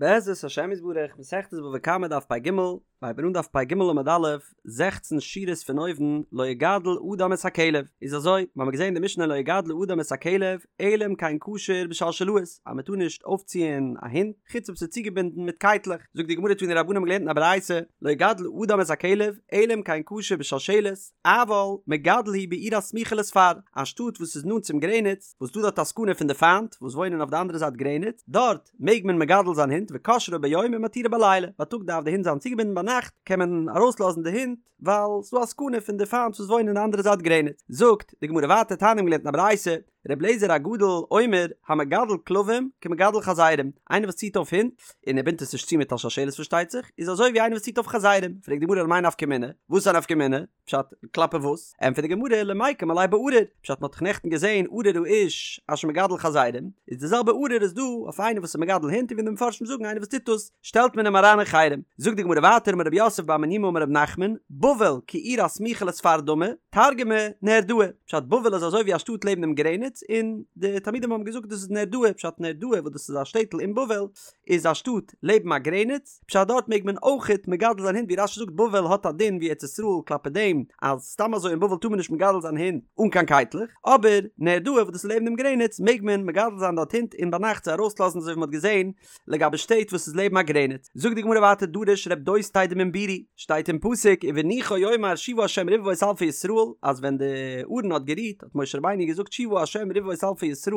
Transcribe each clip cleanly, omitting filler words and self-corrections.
בעזרת השם יתברך, מסכת בבא קמא דף פ"ג, מ'הייבט אן דף פ"ג עמוד א', זעכצן שורות פון אויבן, לא יגדל אדם את הכלב, איז אזוי, מ'האמיר געזען אין די משנה לא יגדל אדם את הכלב, אלא אם כן קשור בשלשלאות, אז מ'טאר נישט אויפציען א הונט, חוץ אויב ס'איז צוגעבינדן מיט קייטלעך, זאגט די גמרא תנו רבנן האבן געלערנט אין א ברייתא, לא יגדל אדם את הכלב, אלא אם כן קשור בשלשלת, אבל מגדל הוא בעיר הסמוכה לספר, א שטאט וואס איז נאנט צום גרעניץ, וואס דא דארט א סכנה פון די פיינט וואס וואוינען אויף די אנדערע זייט גרעניץ, דארט מעג מען מגדל זיין הינט וקושרו ביום ומתירו בלילה, בייטאג דארף די הינט זיין צוגעבינדן ביינאכט קען מען ארויסלאזן די הינט ווייל ס'דא א סכנה פון די פיינט וואס וואוינען אין די אנדערע זייט גרעניץ. זאגט די גמרא ווייטער תניא מ'האבן געלערנט אין א ברייתא, ר' אליעזר הגדול אומר המגדל כלבים כמגדל חזירים, איינער וואס ציט אויף הינט, און ער בינדט עס נישט צו מיט א שלשלת פארשטייט זיך, איז אזוי ווי איינער וואס ציט אויף חזירים, פרעגט די גמרא למאי נפקא מינה, וואס איז א נפקא מינה? פשט, כלפי וואס? ענטפערט די גמרא, למיקם עליה בארור, פשט מ'האט דאך נעכטן געזען ארור האיש אשר מגדל חזירים, איז די זעלבע ארור איז דא אויף איינער וואס איז מגדל הינט און ווי די מפרשים זאגן איינער וואס טוט דאס שטעלט מען אים אריין אין חרם. זאגט די גמרא ווייטער אמר רב יוסף בר מניומי אמר רב נחמן, בבל כעיר הסמוכה לספר דמי, תרגמה נהרדעא, פשט בבל איז אזוי ווי א שטאט לעבן דעם גרעניץ און די תלמידים האבן געזאגט דאס איז נהרדעא, פשט נהרדעא וואס דאס איז א שטעטל אין בבל איז א שטאט לעבן א גרעניץ, פשט דארט מעג מען אויכעט מגדל זיין הינט ווי רש"י זאגט בבל האט א דין ווי ארץ ישראל כלפי דעם אז סתם אזוי אין בבל טאר מען נישט מגדל זיין הינט אן קיין קייטלעך אבער נהרדעא וואס דאס איז לעבן דעם גרעניץ מעג מען מגדל זיין דארט הינט און ביינאכט זיי ארויסלאזן אזוי ווי מען האט געזען לגבי שטעט וואס איז לעבן א גרעניץ זאגט די גמרא ווייטער דרש רב דוסתאי דמן בירי שטייט אין פסוק ובנוחו יאמר שובה ה' רבבות אלפי ישראל אז ווען די ארון האט גערוהט האט משה רבינו געזאגט שובה ה' רבבות אלפי ישראל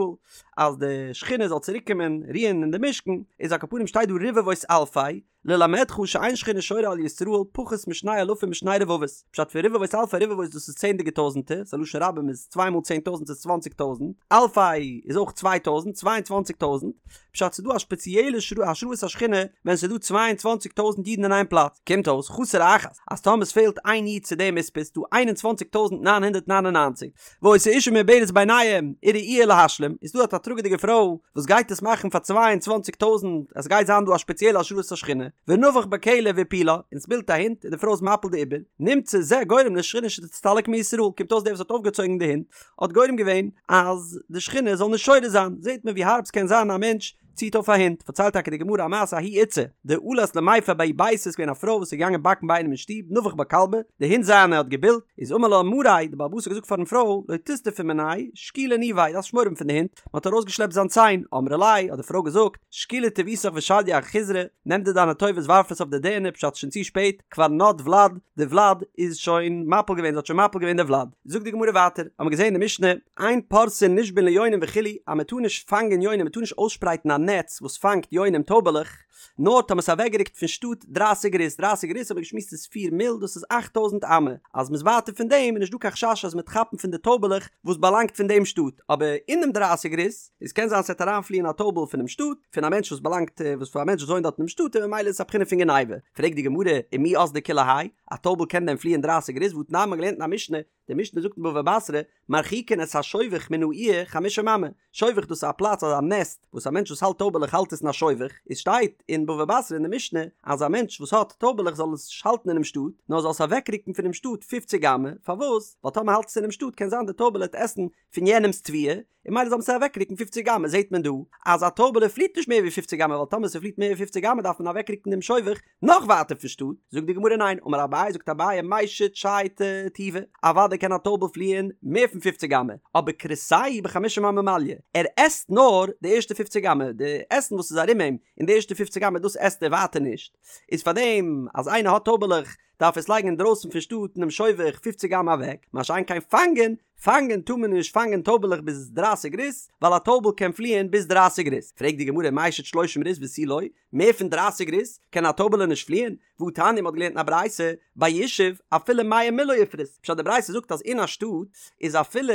אז די שכינה זאל צוריק קומען רוען אין די משכן, איז על כל פנים שטייט דא רבבות אלפי, ללמדך שאין שכינה שורה על ישראל פחות משני אלפים ושני רבבות, פשט פון רבבות אלפי רבבות דאס איז צענדליגע טויזענטער, ס'א לשון רבים איז צוויי מאל 10,000 איז 20,000, אלפי איז אויך 2,000, 22,000, פשט ס'איז דא א שפעציעלע השראת השכינה ווען ס'איז דא 22,000 אידן אין איין פלאץ, קומט אויס חסר אחת אז טאמער ס'פעלט איין איד צו דעם מספר איז דא 21,999, והיתה אשה מעוברת ביניהם וראויה להשלים, איז דא אט א טראגעדיגע פרוי וואס גייט עס מאכן פאר 22 טויזענט, עס גייט זיין דא א שפעציעלע השראת השכינה, ונבח בה כלב והפילה, און ס'בילט א הונט און די פרוי איז מפיל די עובר, נמצא זה גורם לשכינה שתסתלק מישראל, קומט אויס דער וואס האט אויפגעצויגן די הונט האט גורם געווען אז די שכינה זאל נישט שורה זיין, זעט מען ווי הארב ס'קען זיין א מענטש ציט אויף א הונט, פארציילט טאקע די גמרא א מעשה ההיא איתתא דעלת למיפא בההוא ביתא איז געווען א פרוי וואס איז געגאנגען באקן ביי איינעם אין שטוב נבח בה כלבא, די הונט זיינע האט געבילט, איז אמר לה מריה, די בעל הבית האט געזאגט פארן פרוי, לא תיסתפי מיניה, שקילי ניביה, דארפסט נישט מורא האבן פון די הונט, מען האט ארויסגעשלעפט זיין ציין, אמרה ליה, האט די פרוי געזאגט, שקילי טיבותיך ושדייה אחיזרי, נעם דיר דיינע טובות ווארף עס אויף די דערנער פשט שוין צו שפעט, כבר נד ולד, די ולד איז שוין מפיל געווען, זי האט שוין מפיל געווען די ולד. זאגט די גמרא ווייטער, האבן מיר געזען אין די משנה, אין פורסין נישבין ליונים וכו', אז מען טאר נישט פאנגען יונים, מען טאר נישט אויסשפרייטן א נעץ וואס פאנגט יונים טויבעלעך, נאר טאמער ס'איז אוועקגערוקט פון שטאט דרייסיג ריס, דרייסיג ריס האט מען געשמועסט איז פיר מיל, דאס איז אכט טויזנט אמה, אז מ'איז ווייטער פון דעם איז נישט דא קיין חשש אז מ'וועט כאפן פון די טויבעלעך וואס באלאנגט פון דעם שטאט, אבער אינעם דרייסיג ריס, איז קען זיין ס'וועט אריינפליען א טויבל פונעם שטאט, פון א מענטש וואס באלאנגט, וואס פון א מענטש וואס וואוינט דארט אינעם שטאט און ממילא איז עס א בחינה פון גניבה. פרעגט די גמרא, ומי אזלי כולי האי, א טויבל קען דען פליען דרייסיג ריס והתנן מ'האט געלערנט אין א משנה, די משנה זאגט אין בבא בתרא, מרחיקין את השובך מן העיר חמישים אמה, שובך דאס איז א פלאץ אזא נעסט וואס א מענטש וואס האלט טויבעלעך האלט עס אין א שובך, איז שטייט אין בבא בתרא אין די משנה אז א מענטש וואס האט טויבעלעך זאל עס נישט האלטן אינעם שטאט, נאר זאל עס אוועקרוקן פונעם שטאט פופציג אמה, פארוואס? ווייל טאמער האלט עס אינעם שטאט קען זיין די טויבעלע וועט עסן פון יענעמ'ס תבואה, און ממילא זאל מען עס אוועקרוקן פופציג אמה, זעט מען דא אז א טויבעלע פליט נישט מער ווי פופציג אמה ווייל טאמער ס'פליט מער ווי פופציג אמה דארף מען אוועקרוקן דעם שובך נאך ווייטער פון שטאט, זאגט די גמרא ניין, אמר אביי זאגט אביי מישט שייטי טובא, אוודאי קען א טויבל פליען מער פון פופציג אמה, אבער כרסיה בחמישים אמה מליא, ער עסט נאר די ערשטע פופציג אמה, די עסן וואס איז ארום אים אין די ערשטע פופציג אמה דאס עסט ער ווייטער נישט, איז פארדעם אז איינער האט טויבעלעך דארף עס לייגן אינדרויסן פון שטאט אינעם שובך פופציג אמה אוועק, מה שאין כן פאנגען, פאנגען טאר מען נישט פאנגען טויבעלעך ביז דרייסיג ריס, ווייל א טויבל קען פליען ביז דרייסיג ריס, פרעגט די גמרא מישט שלושים ריס ותו לא, מער פון דרייסיג ריס קען א טויבעלע נישט פליען, והתניא מ'האט געלערנט אין א ברייתא, ביישוב אפילו מאה מיל לא יפרוס, פשט די ברייתא זאגט אז אין א שטאט איז אפילו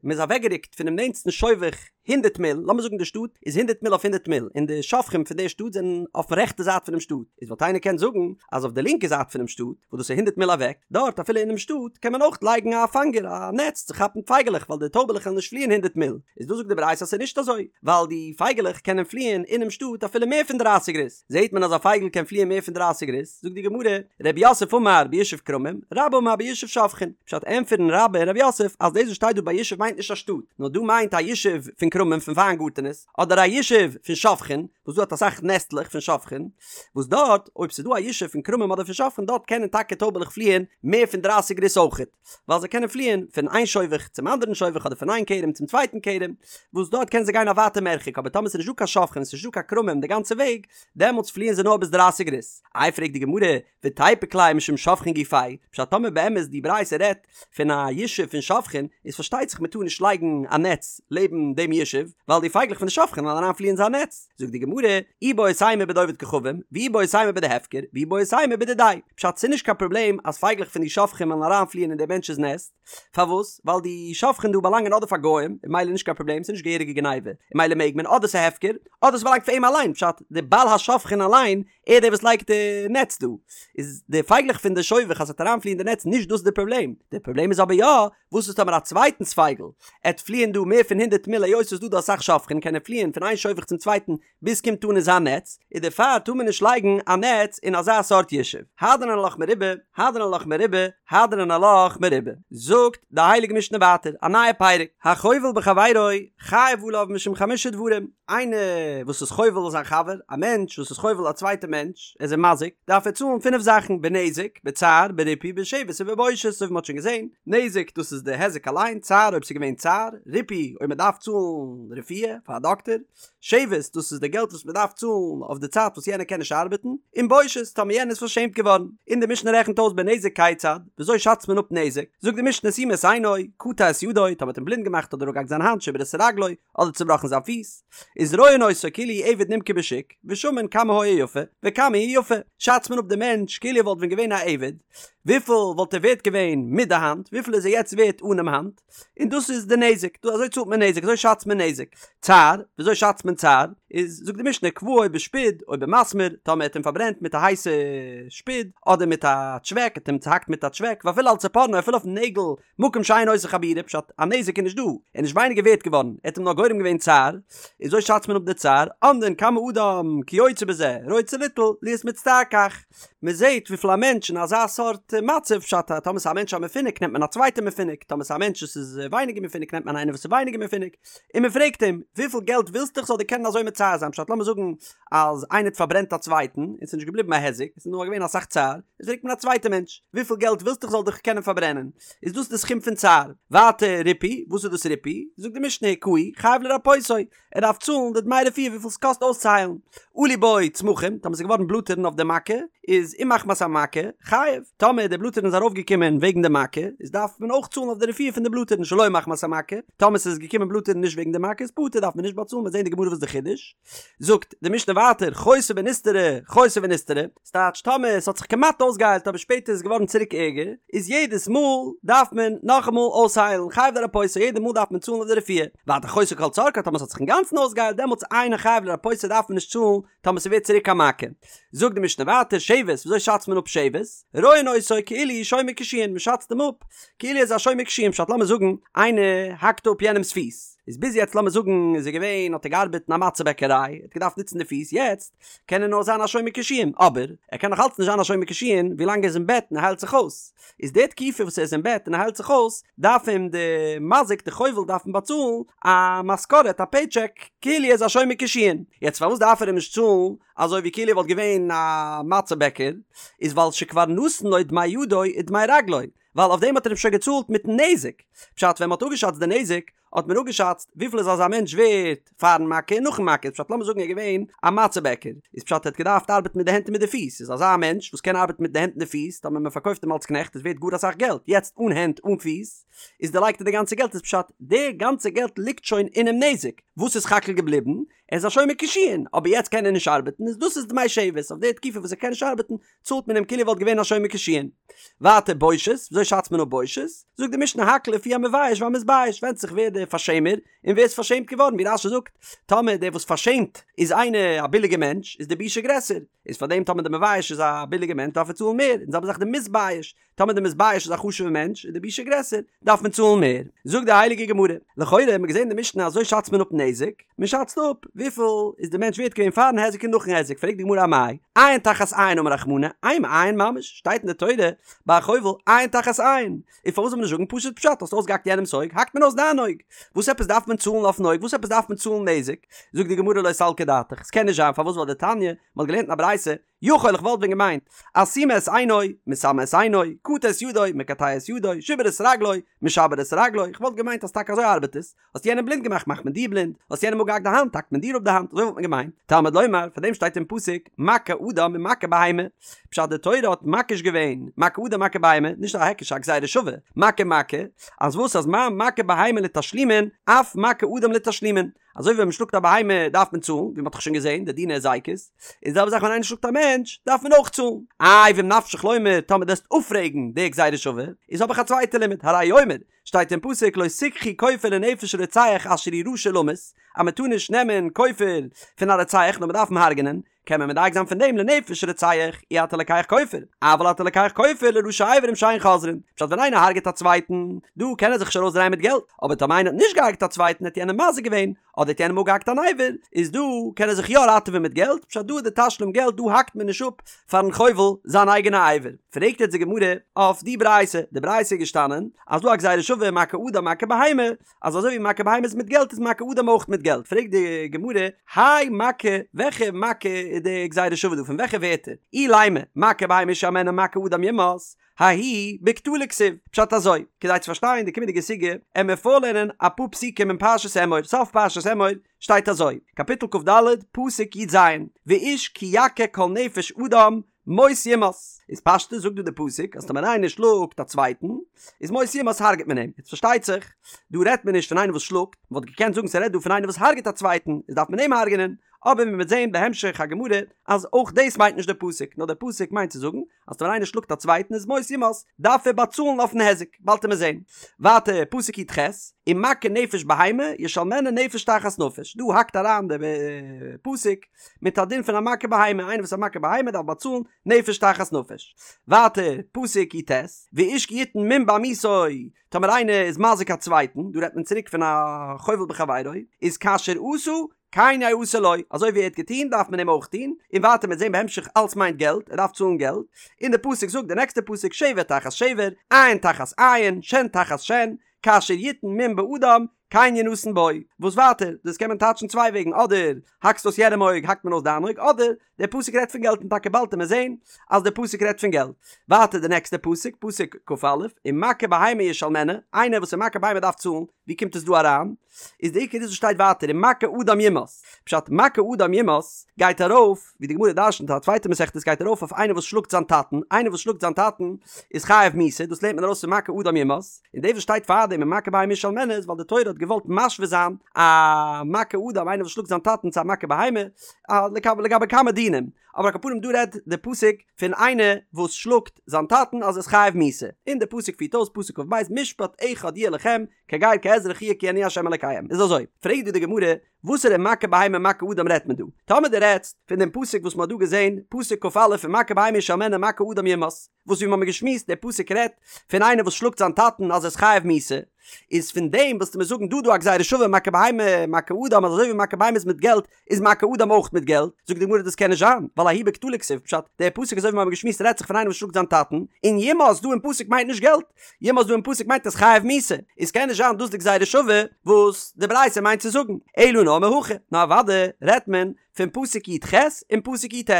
מ'איז אוועקגערוקט פונעם נענטסטן שובך הונדערט מיל, לאמיר זאגן די שטאט איז הונדערט מיל אויף הונדערט מיל, און די שובכים פון די שטאט זענען אויפן רעכטע זייט פונעם שטאט, איז וואלט איינער קענען זאגן אז אויף די לינקע זייט פונעם שטאט, וואס דאס איז הונדערט מיל אוועק, דארט אפילו אינעם שטאט קען מען אויך לייגן א פאנגער, א נעץ צו כאפן פייגעלעך ווייל די טויבעלעך וועלן נישט פליען הונדערט מיל, איז דא זאגט די ברייתא אז ס'איז נישט אזוי, ווייל די פייגעלעך קענען פליען אינעם שטאט אפילו מער פון דרייסיג ריס, זעהט מען אז א פייגל קען פליען מער פון דרייסיג ריס, זאגט די גמרא, רב יוסף אמר ביישוב כרמים, רבה אמר ביישוב שובכין, פשט ענטפערן רבה און רב יוסף אז דאס וואס שטייט דא ביישוב מיינט נישט א שטאט, נאר דא מיינט א ישוב פון. כרמים פון וויינגארטענעס, אדער א ישוב פון שובכין, וואס דא האט אסאך נעסטלעך פון שובכין, וואס דארט אויב ס'איז דא א ישוב פון כרמים אדער פון שובכין דארט קענען טאקע טויבעלעך פליען מער פון דרייסיג ריס אויכעט, ווייל זיי קענען פליען פון איין שובך צום אנדערן שובך אדער פון איין כרם צום צווייטן כרם, וואס דארט קענען זיי גיין א ווייטע מרחק, אבער טאמער ס'איז נישט דא קיין שובכין און ס'איז נישט דא קיין כרמים די גאנצע וועג, דעמאלטס פליען זיי נאר ביז דרייסיג ריס. איי פרעגט די גמרא, ותיפוק ליה משום שובכין גופייהו, פשט טאמער באמת די ברייתא רעדט פון א ישוב פון שובכין, איז פארשטייט זיך מ'טאר נישט לייגן א נעץ לעבן דעם ישוב, ווייל די פייגלעך פון די שובכין וועלן אריין פליען אין זיין נעץ. זאגט די גמרא, איבעית אימא בדעובד כוכבים, ואיבעית אימא בדהפקר, ואיבעית אימא בדידיה. פשט ס'נישט קיין פראבלעם אז פייגלעך פון די שובכין וועלן אריין פליען אין דעם מענטש'ס נעסט, פארוואס? ווייל די שובכין דא באלאנגען אדער פאר גוים, און ממילא נישט קיין פראבלעם, ס'נישט געהעריגע גניבה, און ממילא מעג מען, אדער ס'הפקר, אדער ס'באלאנגט פאר אים אליין, פשט די בעל השובכין אליין ער דער וואס לייגט די נעץ דא, איז די פייגלעך פון די שובך אז ס'וועט אריינפליען די נעץ נישט דאס איז די פראבלעם, די פראבלעם איז אבער יא, וואס איז טאמער א צווייטנס פייגל עט פליען דא מער פון הונדערט מיל היות ס'איז דא דא אסאך שובכין קען ער פליען פון איין שובך צום צווייטן ביז ס'קומט אן אין זיין נעץ, איז דערפאר טאר מען נישט לייגן א נעץ אין אזא סארט ישוב. הדרן עלך מרובה, הדרן עלך מרובה, הדרן עלך מרובה. זאגט די הייליגע משנה ווייטער א נייע פרק, החובל בחבירו חייב עליו משום חמשה דברים, איינער וואס איז חובל זיין חבר, א מענטש וואס איז חובל א צווייטע מענטש, ער איז אים מזיק, דארף ער צאלן פינף זאכן, בנזק, בצער, בריפוי, בשבת ובבושת, אזוי ווי מען האט שוין געזען, נזק דאס איז די היזק אליין, צער אויב ס'איז געווען צער, ריפוי אויב מען דארף צאלן רפואה פאר א דאקטער, שבת דאס איז די געלט וואס מען דארף צאלן אויף די צייט וואס יענער קען נישט ארבעטן, און בושת טאמער יענער איז פארשעמט געווארן. און די משנה רעכנט אויס בנזק כיצד, וויאזוי שאצט מען אפ נזק, זאגט די משנה סימא את עינו, קטע את ידו, טאמער האט אים בלינד געמאכט אדער אפגעהאקט זיין האנט, שיבר את רגלו, אדער צובראכן זיין פיס, איז רואין אותו כאילו הוא עבד נמכר בשוק, ושמין כמה היה יפה, וכמה הוא יפה, שאצט מען אפ די מענטש כאילו ער וואלט ווען געווען א עבד, וויפיל וואלט ער ווערט געווען מיט די האנט, וויפיל איז ער יעצט ווערט אנעם האנט, און דאס איז די נזק, דא אזוי צאלט מען נזק, אזוי שאצט מען נזק. צער, וויאזוי שאצט מען צער? איז זאגט די משנה כוואו בשפוד או במסמר, טאמער ער האט אים פארברענט מיט א הייסע שפוד, אדער מיט א טשוועק, האט אים צוהאקט מיט א טשוועק, ואפילו על צפורנו, אפילו אויפן נעגל, מקום שאין עושה חבורה, פשט, א נזק איז נישט דא, ער איז נישט ווייניגער ווערט געווארן, ער האט אים נאר גורם געווען צער, איז אזוי שאצט מען אפ די צער, אומדין כמה אדם כיוצא בזה, רוצה ליטול, להיות מצטער כך. מען זעט וויפיל א מענטש אין אזא סארט מצב, פשט אז טאמער ס'איז א מענטש א מפונק נעמט מען א צווייטע מפונק, טאמער ס'איז א מענטש וואס איז ווייניגער מפונק נעמט מען איינער וואס איז ווייניגער מפונק, און מען פרעגט אים, וויפיל געלט ווילסטו איך זאל דיר קענען אזוי מצער זיין, פשט לאמיר זאגן אז איינער האט פארברענט א צווייטן און ס'איז נישט געבליבן א היזק, עס איז נאר געווען אסאך צער, איז פרעגט מען א צווייטע מענטש, וויפיל געלט ווילסטו איך זאל דיך קענען פארברענען, איז דאס די סכום פון צער. ווייטער ריפוי, וואס איז דאס ריפוי? זאגט די משנה הכהו, חייב לרפאותו, ער דארף צאלן די דמי רפואה וויפיל ס'קאסט אויסצוהיילן. עלו בו צמחים, טאמער ס'איז געווארן בלאטערן אויף די מכה, איז אם מחמת המכה, חייב. טאמער די בלאטערן איז ארויפגעקומען וועגן די מכה, איז דארף מען אויך צאלן אויף די רפואה פון די בלאטערן שלא מחמת המכה. טאמער ס'איז געקומען בלאטערן נישט וועגן די מכה איז פטור דארף מען נישט באצאלן, מ'וועט זען אין די גמרא וואס די חידוש. זאגט די משנה ווייטער חייתה ונסתרה חייתה ונסתרה, ס'טייטש טאמער ס'האט זיך כמעט אויסגעהיילט אבער שפעטער איז געווארן צוריק ערגער, איז יעדעס מאל דארף מען נאכאמאל אויסהיילן, חייב לרפאותו יעדע מאל דארף מען צאלן אויף די רפואה, ווייטער חייתה כל צרכה טאמער ס'האט זיך אינגאנצן אויסגעהיילט דעמאלטס אינו חייב לרפאותו דארף מען נישט צאלן טאמער ס'ווערט צוריק א מכה. זאגט די משנה ווייטער שבת וויאזוי שאצט מען אפ שבת? רואין אותו כאילו הוא שומר קישואין מ'שאצט אים אפ כאילו ער איז א שומר קישואין פשט לאמיר זאגן איינער האקט אפ יענעמ'ס פיס איז ביז יעצט לאמיר זאגן איז ער געווען האט ער געארבעט אין א מצה בעקעריי ער האט געדארפט נוצן די פיס יעצט קען ער נאר זיין א שומר קישואין אבער ער קען נאך אלץ נישט זיין א שומר קישואין ווילאנג ער איז אין בעט און ער היילט זיך אויס איז די תקופה וואס ער איז אין בעט און ער היילט זיך אויס דארף אים די מזיק די חובל דארף אים באצאלן א משכורת א פעי טשעק כאילו ער איז א שומר קישואין יעצט פארוואס דארף ער אים נישט צאלן אזוי ווי כאילו ער וואלט געווען א מצה בעקער איז ווייל שכבר נתן לו דמי ידו ודמי רגלו ווייל אויף דעם האט ער אים שוין געצאלט מיטן נזק. פשט ווען מ'האט אפגעשאצט די נזק, האט מען אפגעשאצט וויפיל איז אזא מענטש ווערט פארן מכה און נאכן מכה, איז פשט לאמיר זאגן ער איז געווען א מצה בעקער, איז פשט ער האט געדארפט ארבעטן מיט די הענט און מיט די פיס, איז אזא מענטש וואס קען ארבעטן מיט די הענט און די פיס, טאמער מ'פארקויפט אים אלס קנעכט איז ווערט גאר אסאך געלט, יעצט אן הענט אן פיס, איז דערלייגט ער די גאנצע געלט, איז פשט די גאנצע געלט ליגט שוין אינעם נזק, וואס איז סך הכל געבליבן? ער איז א שומר קישואין, אבער יעצט קען ער נישט ארבעטן, איז דאס איז דמי שבת, אויף די תקופה וואס ער קען נישט ארבעטן, צאלט מען אים כאילו ער וואלט געווען א שומר קישואין. ווייטער בושת, וויאזוי שאצט מען אפ בושת? זאגט די משנה הכל לפי המבייש והמתבייש, ווענדט זיך ווער דער פארשעמער און ווער איז פארשעמט געווארן, ווי רש"י זאגט, טאמער דער וואס פארשעמט איז איינער א ביליגער מענטש, איז די בושה גרעסער, איז פארדעם טאמער דער מבייש איז א ביליגער מענטש דארף ער צאלן מער, און זעלבע זאך דער מתבייש, טאמער דער מתבייש איז א חשוב'ער מענטש איז די בושה גרעסער, דארף מען צאלן מער. זאגט די הייליגע גמרא, לכאורה האט מען געזען אין די משנה אזוי שאצט מען אפ נזק, מען שאצט אפ וויפיל. וויפיל איז די מענטש ווערט געווען פארן היזק און נאכן היזק, פרעגט די גמרא אמאי, עין תחת עין אמר רחמנא, אימא עין ממש, שטייט אין די תורה ביי א חובל עין תחת עין, און פארוואס זאל מען נישט זאגן פשוט פשט, האסט אויסגעהאקט יענעמס אויג, האקט מען אויס דיין אויג, וואס עפעס דארף מען צאלן אויפן אויג, וואס עפעס דארף מען צאלן נזק, זאגט די גמרא לא סלקא דעתך, ס'קען נישט זיין, פארוואס ווייל דתניא, מ'האט געלערנט אין א ברייתא, יכול איך וואלט ווען געמיינט, אסומא את עינו, מסמא את עינו, קטע את ידו, מקטע את ידו, שיבר את רגלו, משבר את רגלו, איך וואלט געמיינט אז טאקע אזוי ארבעט עס, האסט יענעם בלינד געמאכט מאכט מען דיר בלינד, האסט יענעם אפגעהאקט די האנט האקט מען דיר אפ די האנט, אזוי וואלט מען געמיינט, תלמוד לומר, פאר דעם שטייט אין פסוק, מכה אדם ומכה בהמה, פשט די תורה האט מקיש געווען, מכה אדם מכה בהמה, נישט א היקש א גזירה שווה, מכה מכה, אז וואס אז מה מכה בהמה לתשלומין, אף מכה אדם לתשלומין, אזוי ווי ווען מען שלאגט א בהמה דארף מען צאלן, ווי מען האט דאך שוין געזען די דיני הזיקות, איז די זעלבע זאך ווען איינער שלאגט א מענטש דארף מען אויך צאלן. איי ואם נפשך לומר טאמער דו וועסט אפפרעגן די גזירה שווה, איז האב איך א צווייטע לימוד, הרי הוא אומר, שטייט אין פסוק לא תקחו כופר לנפש רוצח אשר הוא רשע למות, אז מען טאר נישט נעמען כופר פון א רוצח נאר מען דארף אים הרג'נען, קען מען מדייק זיין פון דעם לנפש רוצח אי אתה לוקח כופר, אבל אתה לוקח כופר לראשי אברים שאין חוזרין, פשט ווען איינער הרג'עט א צווייטן, דא קען ער זיך נישט ארויסדרייען מיט געלט, אבער טאמער איינער האט נישט געהרג'ט א צווייטן האט יענער מזיק געווען, אדער האט יענעם אפגעהאקט אן אבר, איז דא קען ער זיך יא ראטעווען מיט געלט, פשט דא איז די תשלום געלט דא האקט מען נישט אפ פארן חובל זיין אייגענע אבר. פרעגט יעצט די גמרא אויף די ברייתא, די ברייתא איז געשטאנען אז דא א גזירה שווה מכה אדם מכה בהמה, אז אזוי ווי מכה בהמה איז מיט געלט איז מכה אדם אויך מיט געלט, פרעגט די גמרא, הי מכה, וועלכע מכה איז די גזירה שווה דא, פון וועלכע ווערטער? אילימא, מכה בהמה ישלמנה מכה אדם יומת, ההוא בקטלא כתיב, פשט אזוי, כדי צו פארשטיין די קומענדיגע סוגיא, עמיר פארלערנען אפאר פסוקים אין פרשת אמור, סוף פרשת אמור שטייט אזוי, קאפיטל כ"ד, פסוק י"ז, ואיש כי יכה כל נפש אדם, מות יומת, איז פשטות זאגט דא די פסוק אז טאמער איינער שלאגט א צווייטן איז מות יומת הרג'ט מען אים, יעצט פארשטייט זיך דא רעדט מען נישט פון איינער וואס שלאגט, מען וואלט געקענט זאגן ס'רעדט דא פון איינער וואס הרג'ט א צווייטן איז דארף מען אים הרג'נען, אבער מען וועט זען בהמשך הגמרא אז אויך דאס מיינט נישט די פסוק, נאר די פסוק מיינט צו זאגן אז טאמער איינער שלאגט א צווייטן איז מות יומת דארף ער באצאלן אויפן היזק, באלד וועט מען זען. ווייטער פסוק י"ח, ומכה נפש בהמה ישלמנה נפש תחת נפש, דא האקט אריין די פסוק מיט א דין פון א מכה בהמה, איינער וואס איז א מכה בהמה דארף באצאלן נפש תחת נפש. ווייטער, פסוק י"ט, ואיש כי יתן מום בעמיתו, טאמער איינער איז מזיק א צווייטן, דא רעדט מען צוריק פון א חובל בחבירו, איז כאשר עשה, כן יעשה לו, אזוי ווי ער האט געטון דארף מען אים אויך טון, און ווייטער מ'וועט זען בהמשך אלץ מיינט געלט, ער דארף צאלן געלט, און די פסוק זאגט די נעקסטע פסוק שבר תחת שבר, עין תחת עין, שן תחת שן, כאשר יתן מום באדם, כן ינתן בו, וואס ווייטער, דאס קען מען טייטשן צוויי וועגן, אדער האקסט אויס יענעם אויג האקט מען אויס דיין אויג, אדער דער פסוק רעדט פון געלט און טאקע באלד וועט מען זען אז דער פסוק רעדט פון געלט. ווייטער די נעקסטע פסוק, פסוק כ"א, ומכה בהמה ישלמנה, איינער וואס איז מכה בהמה דארף צאלן, ווי קומט עס דא אריין? איז די עיקר איז וואס שטייט ווייטער ומכה אדם יומת, פשט מכה אדם יומת גייט ארויף, ווי די גמרא דרשנ'ט א צווייטע מסכת גייט ארויף אויף איינער וואס שלאגט זיין טאטן, איינער וואס שלאגט זיין טאטן איז חייב מיתה, דאס לערנט מען ארויס פון מכה אדם יומת, און דאס וואס שטייט פארדעם ומכה בהמה ישלמנה איז ווייל די תורה האט געוואלט משווה זיין א מכה אדם איינער וואס שלאגט זיין טאטן צו א מכה בהמה, לגבי כמה דינים, אבער על כל פנים דא רעדט די פסוק פון איינער וואס שלאגט זיין טאטן אז ער איז חייב מיתה, און די פסוק פירט אויס פסוק כ"ב משפט אחד יהיה לכם כגר כאזרח יהיה כי אני ה' אלקיהם, איז אזוי, פרעגט דא די גמרא, וואסערע מכה בהמה מכה אדם רעדט מען דא? טאמער דו רעדסט פון דעם פסוק וואס מען האט דא געזען, פסוק כ"א ומכה בהמה ישלמנה מכה אדם יומת, וואס ווי מ'האמיר געשמועסט דער פסוק רעדט פון איינער וואס שלאגט זיין טאטן אז ער איז חייב מיתה, איז פון דעם וועסטו מיר זאגן דא דא א גזירה שווה מכה בהמה מכה אדם אז אזוי ווי מכה בהמה איז מיט געלט איז מכה אדם אויך מיט געלט, זאגט די גמרא דאס קען נישט זיין, ווייל ההוא בקטלא כתיב, פשט, דער פסוק אזוי ווי מ'האמיר געשמועסט רעדט זיך פון איינער וואס שלאגט זיין טאטן, און יומת דא אין פסוק מיינט נישט געלט, יומת דא אין פסוק מיינט ער איז חייב מיתה, איז קען נישט זיין דאס די גזירה שווה וואס די ברייתא מיינט צו זאגן, אלא נאר מהכא, נאר אוודאי רעדט מען פון פסוק י"ח און פסוק י"ט.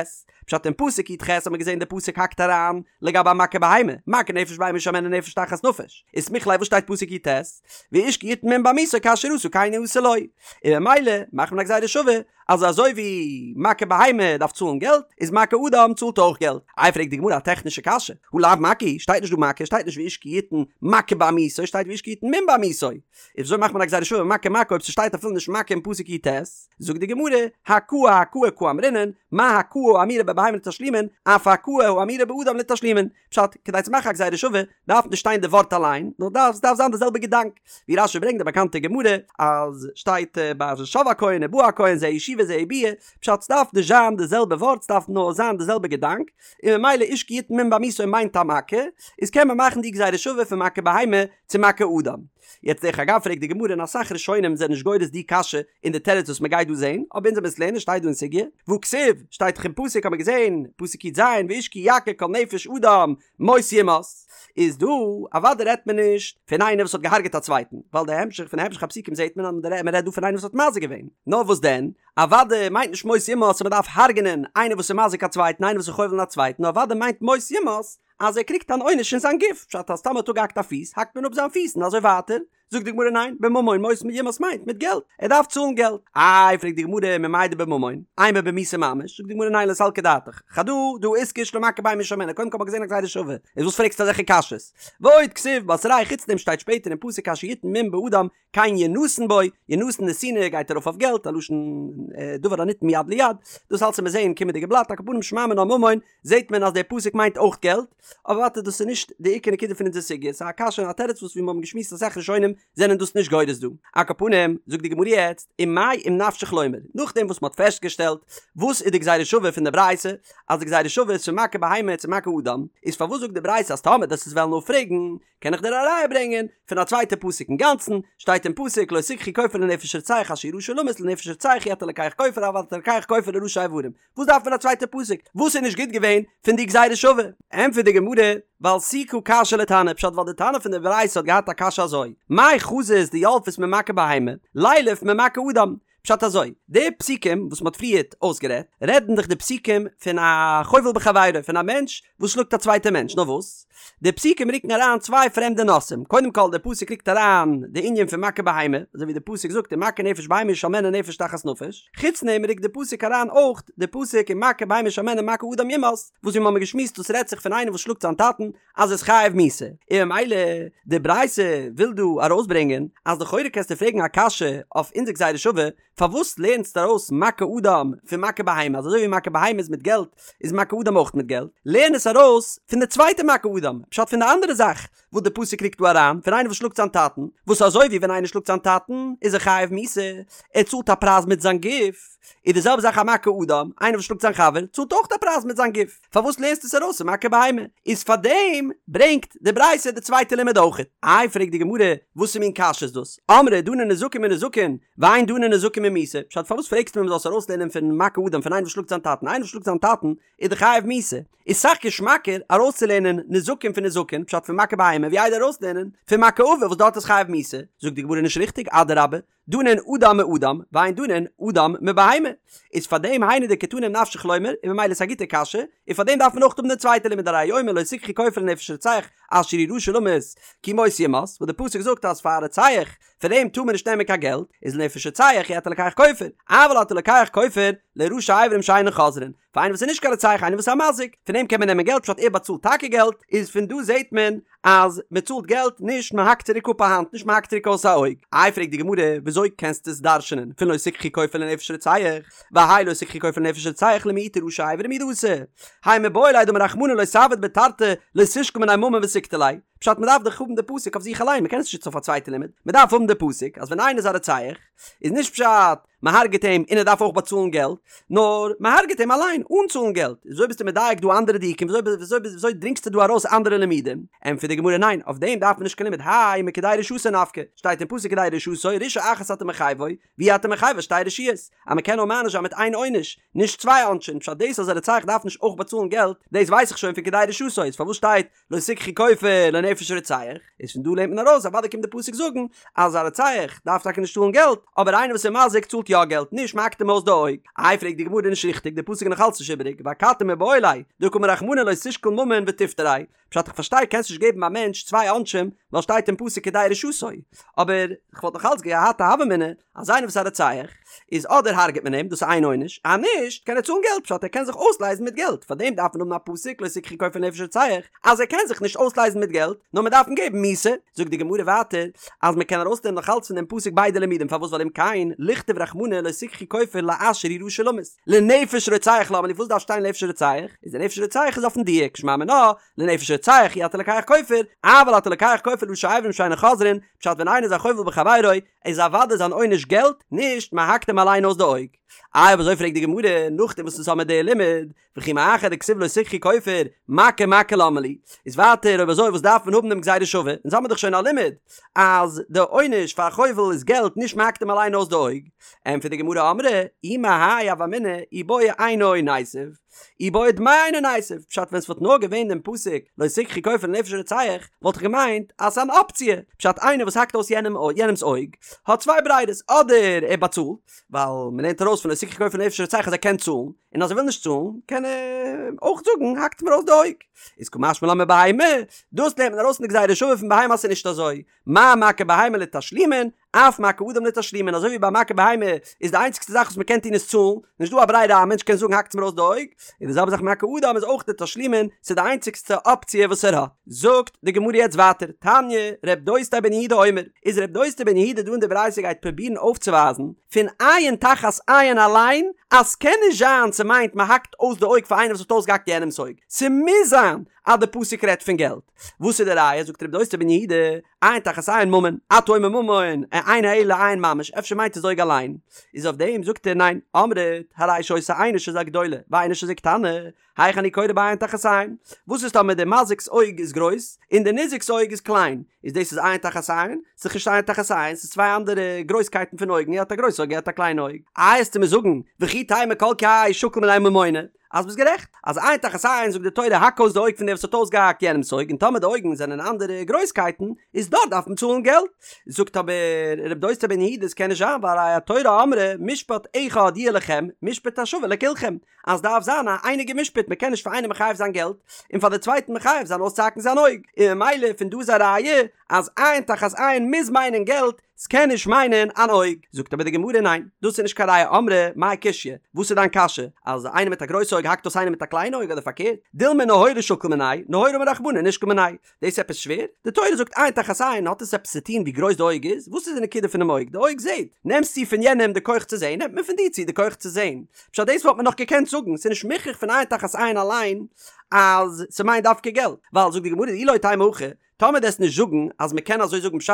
פשט אין פסוק י"ח האט מען געזען די פסוק האקט אריין לגבי א מכה בהמה, מכה נפש בהמה ישלמנה נפש תחת נפש, איז סמיך ליה וואס שטייט פסוק י"ט, ואיש כי יתן מום בעמיתו כאשר עשה כן יעשה לו, און ממילא מאכט מען א גזירה שווה אז אזוי ווי מכה בהמה דארף צאלן געלט, איז מכה אדם צאלט אויך געלט. איי פרעגט די גמרא א טעכנישע קשיא, הא לאו מכה הוא, שטייט נישט דא מכה, שטייט נישט ואיש כי יתן מכה בעמיתו, שטייט ואיש כי יתן מום בעמיתו, איז וויאזוי מאכט מען א גזירה שווה מכה מכה אויב ס'שטייט אפילו נישט מכה אין פסוק י"ט? זאגט די גמרא, הכאה הכאה קאמרינן, מה הכאה האמורה בבהמה לתשלומין, אף הכאה האמורה באדם לתשלומין. פשט, כדי צו מאכן א גזירה שווה, דארף נישט שטיין די ווארט אליין, נאר דארף, ס'דארף זיין די זעלבע געדאנק. ווי רש"י ברענגט די באקאנטע גמרא, אז שטייט ביי שב הכהן ובא הכהן זו ישיבה זו ביאה, פשט, ס'דארף נישט זיין די זעלבע ווארט, ס'דארף נאר זיין די זעלבע געדאנק, און ממילא איש כי יתן מום בעמיתו מיינט א מכה, איז קען מען מאכן די גזירה שווה פון מכה בהמה צו מכה אדם. יעצט דרך אגב פרעגט די גמרא און אסאך ראשונים זענען נישט גורס די קשיא אין די תירוץ וואס מ'גייט דא זעהן, אבער אונז וועלן עס לערנען שטייט דא אין סוגיא, והכתיב, שטייט דאך אין פסוק האט מען געזעהן, פסוק י"ז, ואיש כי יכה כל נפש אדם מות יומת, איז דא אוודאי רעדט מען נישט פון איינער וואס האט געהארגעט א צווייטן, ווייל די המשך פון המשך הפסוקים זעהט מען אז מען רעדט דא פון איינער וואס האט מזיק געווען, נאר וואס דען, אוודאי מיינט נישט מות יומת אז מען דארף הרג'נען איינער וואס איז מזיק א צווייטן, איינער וואס איז חובל אין א צווייטן, נאר אוודאי מיינט מות יומת אז ער קריגט אן עונש אין זיין גוף, פשט אז טאמער האט אפגעהאקט א פיס האקט מען אפ זיין פיס און אזוי ווייטער, זאגט די גמרא ניין, בממון מות יומת מיינט מיט געלט, ער דארף צאלן געלט, איי פרעגט די גמרא ממאי דבממון, אימא במיתה ממש, זאגט די גמרא ניין לא סלקא דעתך, חדא דהא איתקש למכה בהמה ישלמנה, קודם כל האט מען געזען א גזירה שווה, איז וואס פרעגסטו אזעלכע קשיות? ועוד כתיב בתריה חוץ דעם שטייט שפעטער אין פסוק כאשר יתן מום באדם כן ינתן בו, ינתן נתינה גייט ארויף אויף געלט, א לשון דבר הניתן מיד ליד, דאס אלץ וועט מען זעהן אין קומענדיגע בלאט, על כל פנים שמע מינה ממון, זעהט מען אז דער פסוק מיינט אויך געלט, אבער ווייטער דאס איז נישט די עיקר נקודה פון אונזער סוגיא, ס'איז א קשיא און א תירוץ וואס ווי מיר האבן געשמועסט אסאך ראשונים זענען דאס נישט גורס דא. על כל פנים, זאגט די גמרא יעצט, ומאי אם נפשך לומר, נאכדעם וואס מ'האט פעסטגעשטעלט וואס איז די גזירה שווה פון די ברייתא, אז די גזירה שווה איז פון מכה בהמה צו מכה אדם, איז פארוואס זאגט די ברייתא אז טאמער דו וועסט עס וועלן אפפרעגן, קען איך דיר א ראיה ברענגען פון א צווייטע פסוק אינגאנצן, שטייט אין פסוק לא תקחו כופר לנפש רוצח אשר הוא רשע למות לנפש רוצח אי אתה לוקח כופר אבל אתה לוקח כופר לראשי אברים, וואס דארף מען א צווייטע פסוק? וואס איז נישט גוט געווען פון די גזירה שווה? ענטפערט די גמרא, ווייל סיקא קשיא לתנא, פשט ווייל די תנא פון די ברייתא האט געהאט א קשיא אזוי, מאי חזית דילפת ממכה בהמה, לילף ממכה אדם, פשט אזוי, די פסוקים וואס מ'האט פריערט אויסגערעדט, רעדן דאך די פסוקים פון א חובל בחבירו, פון א מענטש וואס שלאגט א צווייטע מענטש, נאר וואס? די פסוקים רוקן אריין צוויי פרעמדע נושאים, קודם כל די פסוק רוקט אריין די ענין פון מכה בהמה, אזוי ווי די פסוק זאגט ומכה נפש בהמה ישלמנה נפש תחת נפש, חוץ דעם רוקט די פסוק אריין אויך די פסוק ומכה בהמה ישלמנה מכה אדם יומת, וואס ווי מ'האמיר געשמועסט דאס רעדט זיך פון איינער וואס שלאגט זיין טאטן אז ער איז חייב מיתה, און ממילא די ברייתא וויל דא ארויסברענגען אז לכאורה קענסטו פרעגן א קשיא אויף אונזער גזירה שווה, פארוואס לערנסטו ארויס מכה אדם פון מכה בהמה, אז אזוי ווי מכה בהמה איז מיט געלט איז מכה אדם אויך מיט געלט, לערן עס ארויס פון די צווייטע מכה אדם, פשט פון די אנדערע זאך וואס די פסוק רוקט דא אריין, פון איינער וואס שלאגט זיין טאטן, וואס אזוי ווי ווען איינער שלאגט זיין טאטן איז ער חייב מיתה, ער צאלט א פרייז מיט זיין גוף, איז די זעלבע זאך א מכה אדם, איינער וואס שלאגט זיין חבר צאלט אויך א פרייז מיט זיין גוף. פארוואס לערנסטו עס ארויס פון מכה בהמה? איז פארדעם ברענגט די ברייתא די צווייטע לימוד אויכעט. איי פרעגט די גמרא, וואסע מין קשיא איז דאס? אמרי דנין נזקין מנזקין, ואין דנין נזקין ממיתה, פשט פארוואס פרעגסטו מיר מ'זאל עס ארויסלערנען פון מכה אדם פון איינער וואס שלאגט זיין טאטן, איינער וואס שלאגט זיין טאטן איז דאך חייב מיתה, איז סאך געשמאקער ארויסצולערנען נזקין פון נזקין, פשט פון מכה בהמה, ווי איידער ארויסלערנען פון מכה אביו וואס דארט איז חייב מיתה, זאגט די גמרא נישט ריכטיג, אדרבה, דנין אדם מאדם, ואין דנין אדם מבהמה. איז פאר דעם היינו דקתני אם נפשך לומר, און ממילא איז א גוטע קשיא, און פאר דעם דארף מען אויך האבן די צווייטע לימוד הרי הוא אומר לא תקחו כופר לנפש רוצח אשר הוא רשע למות כי מות יומת, וואס די פסוק זאגט אז פאר א רוצח פון דעם טאר מען נישט נעמען קיין געלט, איז לנפש רוצח אי אתה לוקח כופר, אבל אתה לוקח כופר לראשי אברים שאינן חוזרין, פאר איינער וואס איז נישט קיין רוצח איינער וואס איז א מזיק, פון דעם קען מען נעמען געלט פשט ער באצאלט טאקע געלט, איז פון דא זעט מען אז מען צאלט געלט נישט מען האקט צוריק אפ א האנט נישט מען האקט צוריק אויס א אויג, איי פרעגט די גמרא וויאזוי קענסטו עס דרש'נען פון לא תקחו כופר לנפש רוצח, והאי לא תקחו כופר לנפש רוצח למעוטי ראשי אברים הוא דאתא, האי מיבעי ליה דאמר רחמנא לא תעביד ביה תרתי לא תשקול מיניה ממון ותקטליה, פשט מען דארף דאך האבן די פסוק אויף זיך אליין מען קען עס נישט נוצן אויף א צווייטע לימוד, מען דארף האבן די פסוק אז ווען איינער איז א רוצח איז נישט פשט מען הרג'ט אים און ער דארף אויך באצאלן געלט, נאר מען הרג'ט אים אליין אן צאלן געלט, וויאזוי ביסטו מדייק דא אנדערע דיוקים, וויאזוי וויאזוי דרינגסטו דא ארויס אנדערע לימודים? ענטפערט די גמרא ניין, אויף דעם דארף מען נישט קיין לימוד, האי מכדי רשעתו נפקא, שטייט אין פסוק כדי רשעתו, רשעה אחת אתה מחייבו, ואי אתה מחייבו שתי רשעיות, אז מען קען נאר מעניש זיין מיט איין עונש, נישט צוויי עונשים, פשט דאס אז א רוצח דארף נישט אויך באצאלן געלט, דאס ווייס איך שוין פון כדי רשעתו, איז פארוואס שטייט לא תקחו כופר לנפש רוצח, איז פון דא לערנט מען ארויס אוודאי קומט די פסוק זאגן אז א רוצח דארף טאקע נישט צאלן געלט, אבער איינער וואס איז מזיק צאלט יא געלט, נישט מ'האקט אים אויס די אויג. איי פרעגט די גמרא נישט ריכטיג, די פסוק איז נאך אלץ נישט איבעריג, ואכתי מיבעי ליה, דקאמר רחמנא לא תשקול ממון ותפטריה, פשט איך פארשטיי קענסט נישט געבן א מענטש צוויי עונשים ווייל שטייט אין פסוק כדי רשעתו, אבער כ'וואלט נאך אלץ געהאט א הוה אמינא אז איינער וואס איז א רוצח איז אדער הרג'ט מען אים דאס איז איין עונש, אז נישט קען ער צאלן געלט פשט ער קען זיך אויסלייזן מיט געלט, פארדעם דארף מען האבן א פסוק לא תקחו כופר לנפש רוצח אז ער קען זיך נישט אויסלייזן מיט געלט נאר מען דארף אים געבן מיתה, זאגט די גמרא ווייטער אז מען קען ארויסנעמען נאך אלץ פון דעם פסוק ביידע לימודים פארוואס ווייל אם כן לכתוב רחמנא לא תקחו כופר לאשר הוא רשע למות לנפש רוצח למה לי וואס דארף שטיין לנפש רוצח איז די נפש רוצח איז אויפן דיוק שמע מינה לנפש רוצח אי אתה לוקח כופר אבל אתה לוקח כופר לראשי אברים שאינן חוזרין פשט ווען איינער איז א חובל בחבירו איז אוודאי זיין עונש געלט, נישט מען האקט אים אליין אויס די אויג. איי אויב אזוי פרעגט די גמרא, נאכדעם וואס אונז האמיר די לימוד, וכי מאחר דכתיב לא תקחו כופר, מכה מכה למה לי, איז ווייטער אויב אזוי וואס דארף מען האבן דעם גזירה שווה, אונז האמיר דאך שוין א לימוד אז די עונש פאר א חובל איז געלט נישט מ'האקט אים אליין אויס די אויג, ענטפערט די גמרא אמרי אי מהאי הוה אמינא אי בעי עינו ניתיב, אי בעי דמי עינו ניתיב, פשט ווען ס'וואלט נאר געווען דעם פסוק לא תקחו כופר לנפש רוצח וואלט איך געמיינט אז ס'איז אן אפציע, פשט איינער וואס האקט אויס יענעמ'ס אויג האט צוויי ברירות אדער ער באצאלט, ווייל מ'לערנט ארויס פון לא תקחו כופר לנפש רוצח אז ער קען צאלן, און אז ער וויל נישט צאלן קען ער אויך זאגן האקט מיר אויס די אויג, איז קא משמע לן מבהמה, דאס לערנט מען ארויס אין די גזירה שווה פון בהמה אז ס'איז נישט אזוי, מה מכה בהמה לתשלומין, אף מכה אדם לתשלומין, אזוי ווי ביי מכה בהמה איז די איינציגסטע זאך וואס מ'קען טון איז צאלן, נישט דא א ברירה א מענטש קען זאגן האקטס מיר אויס די אויג, און די זעלבע זאך מכה אדם איז אויך לתשלומין, ס'איז די איינציגסטע אפציע וואס ער האט. זאגט די גמרא יעצט ווייטער, תניא, ר' דוסתאי בן יהודה אומר, איז ר' דוסתאי בן יהודה דא אין די ברייתא גייט פרובירן אויפצווייזן פון עין תחת עין אליין אז ס'קען נישט זיין ס'מיינט מ'האקט אויס די אויג פאר איינער וואס האט אויסגעהאקט יענעמ'ס אויג, ס'מוז זיין אז די פסוק רעדט פון געלט. וואס איז די ראיה? זאגט ר' דוסתאי בן יהודה, עין תחת עין ממון, אתה אומר ממון, אינו אלא עין ממש, אפשר מיינט עס אויג אליין? איז אויף דעם זאגט ער ניין, אמרת, הרי שהיתה עינו של זה גדולה, ועינו של זה קטנה, היאך אני קורא בה עין תחת עין? וואס איז טאמער דער מזיק'ס אויג איז גרויס, און דער ניזק'ס אויג איז קליין? איז דאס איז עין תחת עין? ס'איז נישט עין תחת עין, ס'איז צוויי אנדערע גרויסקייטן פון אויגן, ער האט א גרויס אויג, ער האט א קליין אויג. איי עסטו מיר זאגן, וכי תימא כל כי שקיל מיניה ממונא, אז ביסט גערעכט, אז עין תחת עין זאגט די תורה האק אויס די אויג פון דער וואס האט אויסגעהאקט יענעמ'ס אויג און טאמער די אויגן זענען אנדערע גרויסקייטן איז דארט דארף מען צאלן געלט. זאגט אבער ר' דוסתאי בן יהודה עס קען נישט זיין והרי התורה אמרה משפט אחד יהיה לכם משפט השווה לכולכם אז דארף זיין א אייניגע משפט מען קען נישט פאר איינעם מחייב זיין געלט און פאר די צווייטן מחייב זיין אויסצוהאקן זיין אויג און ממילא פון דא איז א ראיה אז עין תחת עין מוז מיינען געלט ס'קען נישט מיינען אן אויג. זאגט אבער די גמרא ניין, דאס איז נישט קיין ראיה אמרי מאי קושיא, וואס איז דיין קשיא? אז איינער מיט א גרויס אויג האקט אויס איינער מיט א קליין אויג אדער פארקערט? דילמא נהורא שקיל מיניה, נהורא אמר רחמנא נישקול מיניה. דאס איז עפעס שווער? די תורה זאגט עין תחת עין, האט עס עפעס צו טון ווי גרויס די אויג איז? וואס איז די נקודה פונעם אויג? די אויג זעט. נעמסט צו פון יענעם די כח צו זען, נעמט מען פון דיר צו די כח צו זען. פשט דאס וואלט מען נאך געקענט זאגן, ס'איז נישט מוכרח פון עין תחת עין אליין אז ס'מיינט דווקא געלט. ווייל זאגט די גמרא אי לא תימא הכי, טאמער דו עסט נישט זאגן אז מען קען אזוי זאגן פשט,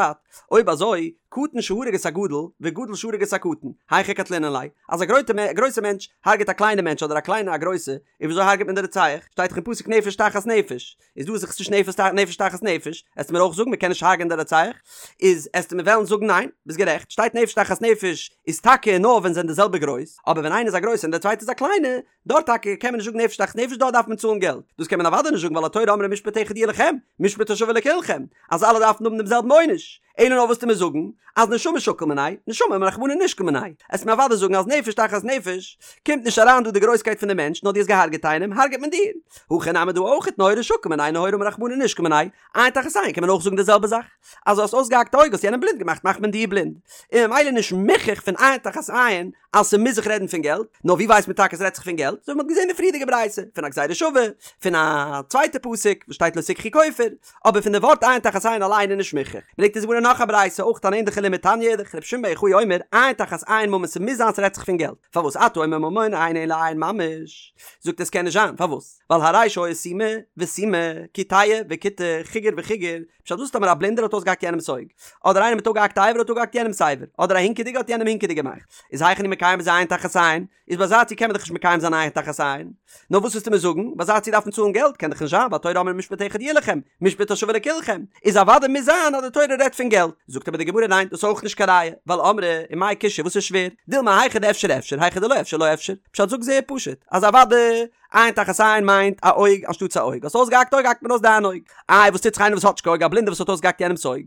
אויב אזוי, קטן שהרג את הגדול, וגדול שהרג את הקטן, היכי קטלינן ליה, אז א גרויסע מענטש הרג'ט א קליינע מענטש אדער א קליינע א גרויסע, און וויאזוי הרג'ט מען די רוצח? שטייט דאך אין פסוק נפש תחת נפש, איז דא איז דאך נישט נפש תחת נפש, עסטו מיר אויך זאגן מען קען נישט הרג'ענען די רוצח? איז עסטו מיר וועלן זאגן ניין, ביסט גערעכט, שטייט נפש תחת נפש איז טאקע נאר ווען זיי זענען די זעלבע גרויס, אבער ווען איינער איז א גרויסע און דער צווייטער איז א קליינע, דארט טאקע קען מען נישט זאגן נפש תחת נפש דארט דארף מען צאלן געלט, דאס קען מען אוודאי נישט זאגן ווייל התורה אמרה משפט אחד יהיה לכם, משפט השווה לכולכם, אז אלע דארפן האבן דעם זעלבן עונש, אלא נאר וואס עסטו מיר זאגן אז נשמה שקיל מיניה, נשמה אמר רחמנא נישקול מיניה, עסט מיר אוודאי זאגן אז נפש תחת נפש קומט נישט אריין דא די גרויסקייט פון די מענטש נאר דו האסט געהארגעט איינעם הארגעט מען דיר, הכא נמי דא אויכעט נהורא שקיל מיניה נהורא אמר רחמנא נישקול מיניה, עין תחת עין קען מען אויך זאגן די זעלבע זאך, אז דו האסט אויסגעהאקט א אויג האסט יענעם בלינד געמאכט מאכט מען דיר בלינד, און ממילא נישט מוכרח פון עין תחת עין אז ס'מוז זיך רעדן פון געלט, נאר ווי ווייסט מען טאקע ס'רעדט זיך פון געלט? אזוי ווי מ'האט געזען אין די פריערדיגע ברייתא, פון א גזירה שווה, פון א צווייטע פסוק וואס שטייט לא תקחו כופר, אבער פון די ווארט עין תחת עין אליין איז נישט מוכרח. ברענגט אונז די גמרא נאך א ברייתא, אויך אן ענדליכע לימוד תניא אידך, רבי שמעון בר יוחאי אומר, עין תחת עין ממון ס'מוז זיין ס'רעדט זיך פון געלט, פארוואס אתה אומר ממון אינו אלא עין ממש? זאגט ער ס'קען נישט זיין, פארוואס? ווייל הרי שהיו סומא וסומא, קיטע וקיטע, חיגר וחיגר, פשט וואס טאמער א בלינדער האט אויסגעהאקט יענעמס אויג, אדער איינער מיט אפגעהאקטע אבר האט אפגעהאקט יענעמס אבר, אדער א הינקעדיגע האט יענעם הינקעדיג געמאכט, איז היאך אני מקיים בזה עין תחת עין, איז ביי אזא ציור קען מען דאך נישט מקיים זיין עין תחת עין, נאר וואס וועסטו מיר זאגן, ביי אזא ציור דארף מען צאלן געלט, קען דאך נישט זיין, ווייל התורה אמרה משפט אחד יהיה לכם, משפט השווה לכולכם, איז אוודאי מוז זיין אז די תורה רעדט פון געלט, זאגט אבער די גמרא ניין דאס איז אויך נישט קיין ראיה, ווייל אמרי, ומאי קושיא וואס איז שווער, דילמא היכא דאפשר אפשר, היכא דלא אפשר לא אפשר, פשט זאג זייער פשוט, אז אוודאי עין תחת עין מיינט א אויג אנשטאטס א אויג, האסט אויסגעהאקט אויג האקט מען אויס דיין אויג, איי וואס טוט זיך איינער וואס האט נישט קיין אויג א בלינדער וואס האט אויסגעהאקט יענעמס אויג,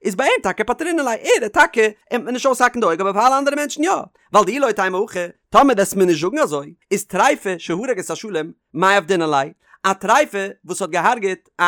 איז ביי אים טאקע פטרינן ליה, ער איז טאקע אים וועט מען נישט אויסהאקן די אויג אבער פאר אלע אנדערע מענטשן יא, ווייל דאי לא תימא הכי, טאמער וועסט מיר נישט זאגן אזוי, איז טריפה שהרג את השלם, מאי עבדינן ליה, א טריפה וואס האט געהארגעט א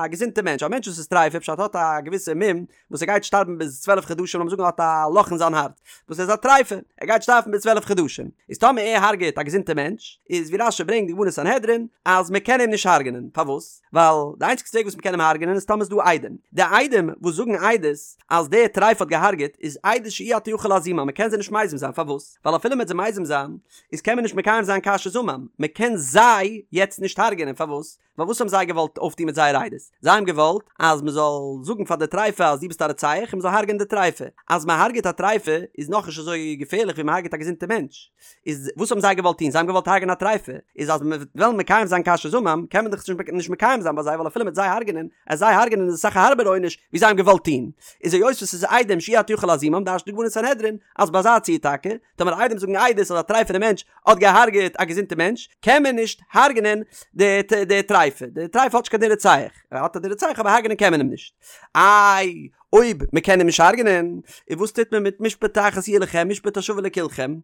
געזונטע מענטש, א מענטש וואס איז טריפה פשט האט א געוויסע מום וואס ער גייט שטארבן ביז 12 חדשים לאמיר זאגן ער האט א לאך אין זיין הארץ וואס איז א טריפה ער גייט שטארבן ביז 12 חדשים איז טאמער ער הרגעט א געזונטע מענטש איז ווי רש"י ברענגט די גמרא אין סנהדרין אז מען קען אים נישט הרגענען פארוואס ווייל די איינציגסטע וועג וואס מען קען אים הרגענען איז טאמער איז דא עדים די עדים וואס זאגן עדות אז דער טריפה האט געהארגעט איז עדות שאי אתה יכול להזימה מען קען זיי נישט מזים זיין פארוואס ווייל אפילו מען וועט זיי מזים זיין איז קען מען נישט מקיים זיין כאשר זמם מען קען זיי יעצט נישט הרגענען פארוואס? פארוואס? ווייל וואס האבן זיי געוואלט אויפטון מיט זייער עדות? זיי האבן געוואלט אז מען זאל זאגן פאר די טריפה אז דו ביסט א רוצח און מען זאל הרג'ענען די טריפה. אז מען הרג'עט א טריפה איז נאכנישט אזוי געפערליך ווי מען הרג'עט א געזונטע מענטש. איז וואס האבן זיי געוואלט טון? זיי האבן געוואלט הרג'ענען א טריפה. איז אז מען וועט וועלן מקיים זיין כאשר זמם, קען מען דאך נישט מקיים זיין ביי זיי ווייל אפילו מ'וועט זיי הרג'ענען, אז זיי הרג'ענען איז אסאך א הארבערע עונש ווי זיי האבן געוואלט טון. איז היות וואס ס'איז עדים שאי אתה יכול להזימם דרש'נט די גמרא אין סנהדרין אז ביי אזא ציור טאקע, טאמער עדים זאגן עדות אז א טרייפענע מענטש האט געהארגעט א געזונטע מענטש, קען מען נישט הרג'נען די די טרייפע, די טרייפע האט נישט קיין דין רוצח, ער האט א דין רוצח אבער הרג'נען קען מען אים נישט. איי אויב מען קען אים נישט הרג'נען, און וואס טוט מען מיט משפט אחת יהיה לכם משפט השווה לכולכם?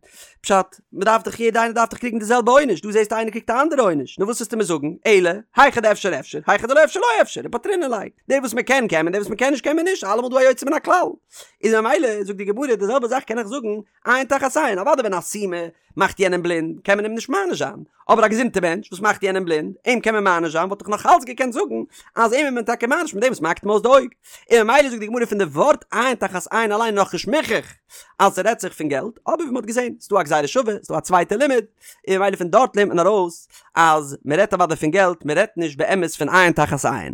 פשט, מען דארף דאך יעדע איינער דארף דאך קריגן די זעלבע עונש, דא זעסטו איינער קריגט א אנדערע עונש, נו וואס וועסטו מיר זאגן, אלא, היכא דאפשר אפשר, היכא דלא אפשר לא אפשר, ופטרינן ליה, די וואס מען קען קען מען, די וואס מען קען נישט קען מען נישט, אלעמאל דא א יוצא מן הכלל. איז ממילא זאגט די גמרא די זעלבע זאך קען איך זאגן עין תחת עין, אוודאי ווען א סומא מאכט יענעם בלינד קען מען אים נישט מעניש זיין, אבער א געזונטע מענטש וואס מאכט יענעם בלינד אים קען מען מעניש זיין וואלט איך נאך אלץ געקענט זאגן אז אים איז מען טאקע מעניש מיט דעם וואס מ'האקט אים אויס די אויג, און ממילא זאגט די גמרא פון די ווארט עין תחת עין אליין נאכנישט מוכח אז ס'רעדט זיך פון געלט, אבער ווי מ'האט געזען ס'דא א גזירה שווה ס'דא א צווייטע לימוד, און ממילא פון דארט לערנט מען ארויס אז מ'רעדט אוודאי פון געלט מ'רעדט נישט באמת פון עין תחת עין.